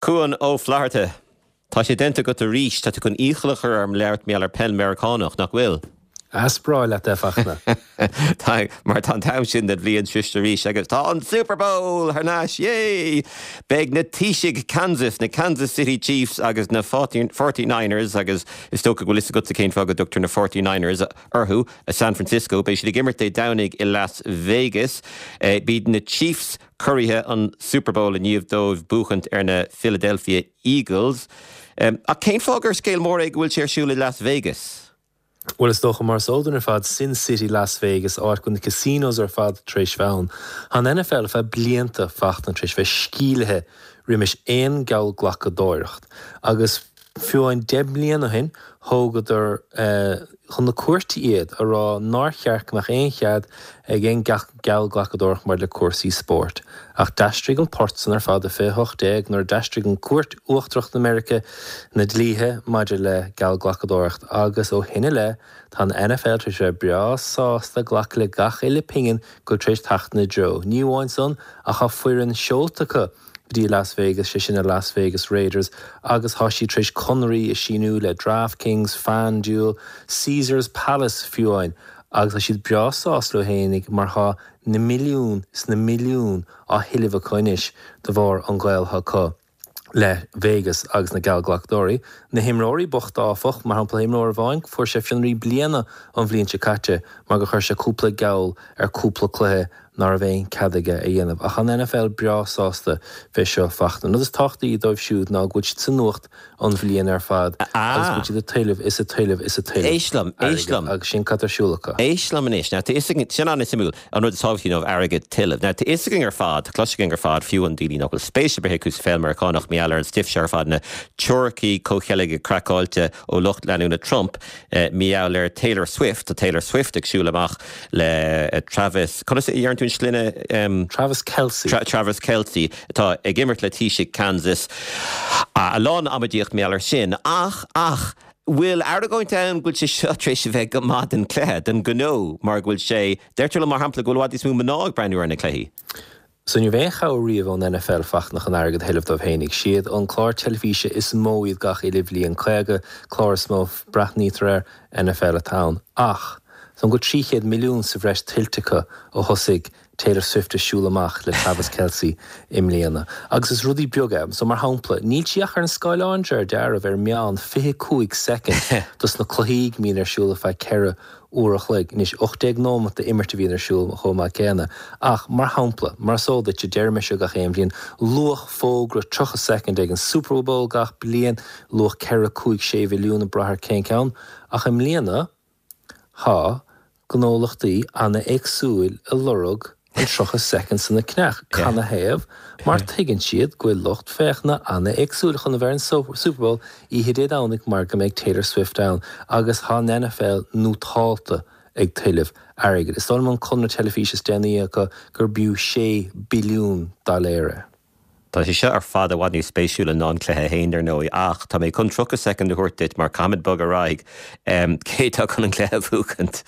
Cuan Ó Flatharta, Tá sé déanta agat arís, tá tú chun iachall a chur orm labhairt mar gheall ar peil Meiriceánach, nach bhfuil? Is breá leat é, a Fachtna. Tá, mar tá an t-am sin den bhliain sroiste arís agus tá an Super Bowl thar n-ais, yay! Beidh na Taoisigh Kansas, na Kansas City Chiefs agus na Forty Niners, agus is dócha go bhfuil fhios agatsa cén fáth go dtugtar na Forty Niners orthu, i San Francisco, beidh siad ag imirt Dé Domhnaigh i Las Vegas. B'iad na Chiefs curaithe an Super Bowl i ndiaidh dóibh buachaint ar na Philadelphia Eagles. Ach cén fáth gur scéal mór é go bhfuil sé ar siúl i Las Vegas? Bhuel, is dócha, mar is eol dúinn ar fad, Sin City Las Vegas, áit go bhfuil na casinos ar fad tar éis bheith ann. Tá an NFL ar feadh blianta, Fachtna, tar éis bheith sceimhlithe roimis aon gheallghlacadóireacht. Agus Fiú amháin 10 mbliana ó shin, thógadar chun na cúirte iad, a rá nár cheart go mbeadh aon chead ag aon geallghlacadóireacht maidir le cúrsaí spóirt. Ach d'aistrigh an port san ar fad i 2018 nuair a d'aistrigh an Cúirt Uachtarach na Meirice na dlíthe maidir le geallghlacadóireacht agus ó shin i leith tá an NFL tar éis bheith breá sásta glacadh le gach uile pingin go bhfuil tar éis teacht ina dtreo. Ní amháin san ach tá foireann seolta acu go dtí Las Vegas, sé sin na Las Vegas Raiders, agus tá siad tar éis conarthaí a síniú le DraftKings, FanDuel, Caesars Palace fiú amháin, agus tá siad breá sásta leo fhéinig mar tá na milliúin is na milliúin á thuilleamh acu anois de bharr an gaol atá acu le Vegas agus na geallghlacadóirí. Na himreoirí bochta áfach, mar shampla imreoir amháin, fuair sé fionraí bliana an bhliain seo caite mar gur chuir sé cúpla geall ar cúpla cluiche ná raibh aon cead aige a dhéanamh. Ach an NFL breá sásta fé seo Fachtna. An rud is tábhachtaí dóibh siúd ná go bhfuil siad sa nuacht an bhliain ar fad agus go bhfuil siad ag tuilleamh is ag tuilleamh is ag tuilleamh Éist liom, éist liom. agus sin cad tá ar siúl acu. Éist liom anois. Now, tá fhios againn, sin an-suimiúil, an rud is tábhachtaí dóibh airgead tuilleamh. Now, tá fhios againn ar fad, tá cloiste againn ar fad, fiú an daoine nach bhfuil spéis ar bith acu sa pheil Meiriceánach, mar gheall ar an stuif seo ar fad, na teoiricí comhcheilge craiceáilte ó lucht leanúna Trump, Mar gheall ar Taylor Swift, tá Taylor Swift ag siúl amach le Travis, conas a dheireann tú an sloinne? Travis Kelce. Travis Kelce, atá ag imirt le Taoisigh Kansas. A lán amaidíocht mar gheall ar sin. Ach, ach, bhfuil argóint ann go bhfuil sé seo tar éis a bheith go maith don chluiche, don ghnó, mar go bhfuil sé, deirtear liom mar shampla go bhfuil i bhfad níos mó mná ag breathnú ar na cluichí. So ní raibh aon chabhair riamh ón NFL Fachtna chun airgead a thuilleamh dóibh fhéinig. Siad an clár teilifíse is mó iad gach uile bhliain, 50 clár is mó a breathnaítear air, NFL atá ann. Ach, tá go 300 milliún sa bhreis tuillte acu ó thosaigh Taylor Swift ag siúl amach le Travis Kelce i mbliana. Agus is rudaí beaga é. So mar shampla, níl sí ach ar an scáileán de réir dealraimh ar meán 25 soicind dos na cluichí go mbíonn ar siúl ar feadh 4 uair a chloig. Anois, 18 nóimeat d'imirt a bhíonn ar siúl chomh maith céanna. Ach, mar shampla, mar is eol duit, deirim é seo gach aon bhliain, luach fógra 30 soicind ag an Super Bowl gach bliain, luach 4, 5, 6 mhilliún ag brath ar cén ceann. Ach i mbliana, tá gnólachtaí ana-éagsúil ag lorg an 30 soicind san a cheannach. Canathaobh? Mar tuigeann siad go bhfuil lucht féachana ana-éagsúil chun a bheith ar an Super Bowl oíche Dé Domhnaigh mar go mbeidh Taylor Swift ann agus tá an NFL nótálta ag tuilleamh airgid. Is dóigh liom an conradh teilifíse is déanaí acu gur b'fhiú 6 billiún dollar é. Tá sé seo ar fad i bhfad níos spéisiúla ná an cluiche féin, dar ndóigh, ach tá mé chun 30 soicind a thabhairt duit mar caithfimid bogadh ar aghaidh. Cé atá chun an cluiche a bhuachaint?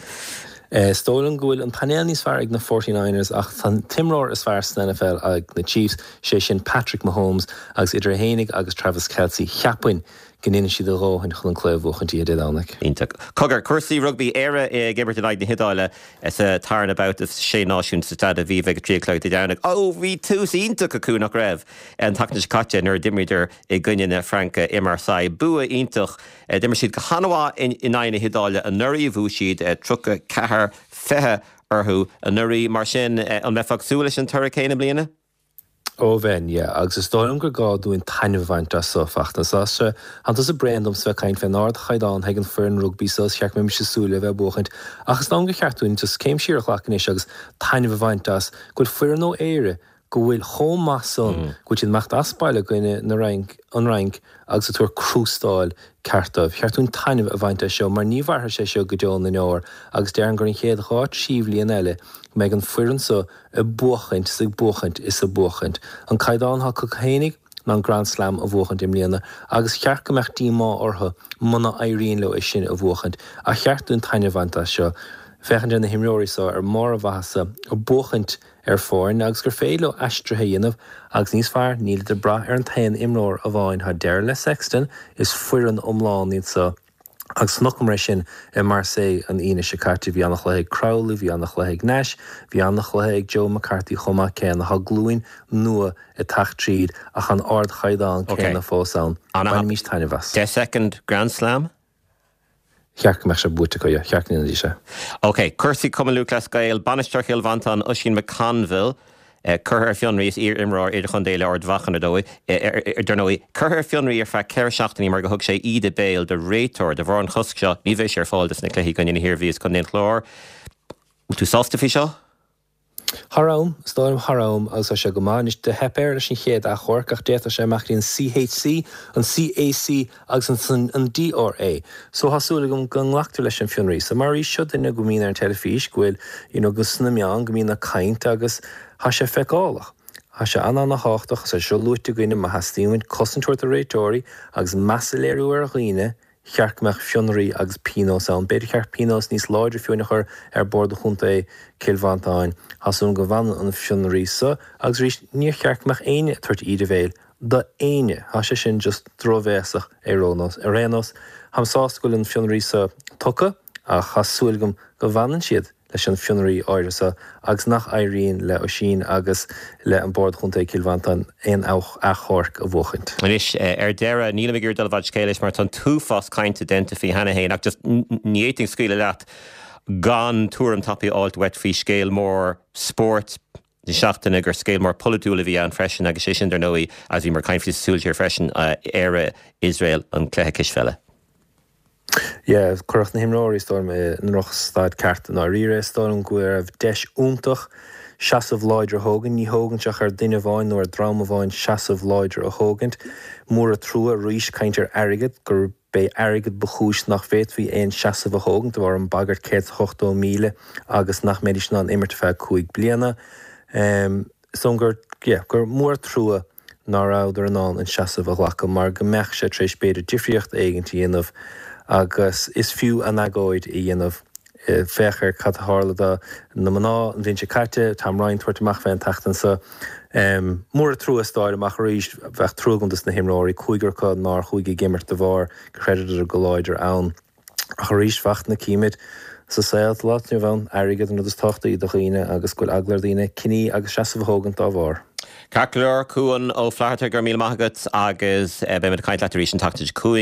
Is dóigh liom go bhfuil an painéal níos fearr ag na Forty Niners ach tá an t-imreoir is fearr san NFL ag na Chiefs, sé sin Patrick Mahomes, agus idir é fhéinig agus Travis Kelce, cheapfainn go ndéanfaidh siad a dhóthain chun an cluiche a bhuachaint oíche Dé Domhnaigh. Iontach. Cogar, cúrsaí rugbaí, Éire ag imirt in aghaidh na hIodáile. Sa tarna babhta Sé Náisiún sa Staid Aviva ag a 3 a chlog Dé Domhnaigh. Ó, bhí tús iontach acu, nach raibh, an tseachtain seo caite nuair a d'imríodar i gcoinne na Fraince i Marseille. Bua iontach. D'imir siad go han-mhaith in aghaidh na hIodáile anuraidh. Bhuaigh siad 34, 20 orthu anuraidh. Mar sin, an mbeifeá ag súil leis an toradh céanna i mbliana? Ó bheinn, yeah. Agus is dóigh liom gur gá dúinn taitneamh a bhaint as so, Fachtna. Tá sé, tánn tusa bréan domsa bheith ag caint fén ardchaighdeán ag an foireann rugbaí so, is cheart go mbeimis ag súil le bheith ag buachaint. Ach is dóigh liom gur cheart dúinn just céim siar a ghlacadh anois agus taitneamh a bhaint as go bhfuil foireann ó Éire go bhfuil chomh maith san, go bhfuil siad ag imeacht as baile i gcoinne na Fhrainc, an Fhrainc agus ag tabhairt crústáil ceart dóibh. Cheart dúinn taitneamh a bhaint as seo mar ní mhairfidh sé seo go deo na ndeor agus déarfainn gur an chéad dhá trí bhliain eile go mbeidh an foireann so ag buachaint is ag buachaint is ag buachaint. An caighdeán atá acu fhéinig ná an Grand Slam a bhuachaint i mbliana agus cheart go mbeadh díomá orthu muna éiríonn leo é sin a bhuachaint. Ach cheart dúinn taitneamh a bhaint as seo. Féachaint ar na himreoirí so ar mbarr a mhaitheasa ag buachaint ar foirne agus gur féidir leo aistrithe a dhéanamh agus níos fearr, nílid ag brath ar an t-aon imreoir amháin. Tá deireadh le Sexton, is foireann iomlán iad so agus chonaiceamar é sin i Marseille an Aoine seo caite. Bhí an-chluiche ag Crowley, bhí an-chluiche ag Nash, bhí an-chluiche ag Joe McCarthy chomh maith céanna. Tá glúin nua ag teacht tríd ach an ardchaighdeán céanna fós ann. Bainimís taitneamh as. 10 second Grand Slam? Cheart go mbeadh sé buaite acu, yeah. Cheart go ndéanfaidís é. Ok, cúrsaí Cumann Lúthchleas Gael, Bainisteoir Chill Mhantáin, Oisín McConville, curtha ar fionraí, is iar-imreoir idirchontae le Ard Mhacha, ar ndóigh, dar ndóigh, curtha ar fionraí ar feadh 4 seachtainí mar go thug sé íde béil do réiteoir. De bharr an chosc seo, ní bheidh sé ar fáil dos na cluichí i gcoinne na hIarmhí is Contae an Chláir. Bhfuil tú sásta faoi seo? Thar am, is dóigh liom, thar am agus tá sé go maith. Anois, do theip air leis an chéad achomharc ach d'fhéadfadh sé imeacht go dtí an CHC, an CAC agus ansan an DRA. So tá súil agam go nglactar leis an fionraí so. Mar arís, seo duine go mbíonn ar an teilifís, go bhfuil, you know, go sna meáin, go mbíonn ag caint agus tá sé feiceálach. Tá sé an-an-thábhachtach agus tá sé seo luaite againne, má theastaíonn uainn cosaint a thabhairt do réiteoirí agus meas a léiriú ar dhaoine, cheart go mbeadh fionraí agus pionós ann. B'fhéidir cheart pionós níos láidre fiú a chur ar Bord Chontae Chill Mhantáin. Tá súil agam go bhfanann an fionraí so agus arís níor cheart go mbeadh éinne ag tabhairt íde bhéil do éinne. Tá sé sin just drochbhéasach ar aon nós. Ar aon nós, táim sásta go bhfuil an fionraí so tugtha ach tá súil agam go bhfanann siad. leis an fionraí áirithe seo agus nach éiríonn le Oisín agus le an Bord Chontae Chill Mhantáin aon achomharc a bhuachaint. Anois, ar deireadh, nílim ag iarraidh dul i bhfad scéil leis mar tá an t-uafás cainte déanta faoi cheana féin ach just ní fhéadfainn scaoileadh leat gan tuairim tapaidh a fháilt uait faoi scéal mór spóirt na seachtaine gur scéal mór polaitiúil a bhí ann freisin agus sé sin dar ndóigh, agus bhíomar ag caint faoi sa Súil Siar freisin, Éire, Iosrael, an cluiche cispheile. Yeah, cuireadh na himreoirí, is dóigh liom, i ndrochstaid ceart i ndáiríre. Is dóigh liom go raibh deis iontach seasamh láidir a thógaint. Ní thógann sé ach ar duine amháin nó ar dream amháin seasamh láidir a thógaint. Mór an trua arís caint ar airgead, gurb é airgead ba chúis nach bhféadfaí aon seasamh a thógaint de bharr an bagairt 180,000 agus nach mbeidís in ann imirt ar feadh 5 bliana. Is dóigh liom gur, yeah, gur mór an trua ná rabhadar in ann an seasamh a ghlacadh mar go mbeadh sé tar éis b'fhéidir difríocht éigint a dhéanamh agus is fiú an agóid a dhéanamh. Féach ar cad a tharla do na mná an bhliain seo caite, Tom Ryan tabhairt amach fé an tseachtain seo. Mór an trua is dóigh liom ach arís bheadh trua agam dos na himreoirí, cúigear acu nár chuaigh ag imirt de bharr gur chreideadar go láidir ann. Ach arís, fachtna, címid sa saol atá inniu ann, airgead an rud is tábhachtaí do dhaoine agus go bhfuil eagla ar dhaoine cinní agus seasamh a thógaint dá bharr. Ceart go leor, Cuan Ó Flatharta, go raibh míle maith agat agus beimid ag caint leat arís an tseachtain seo chugainn.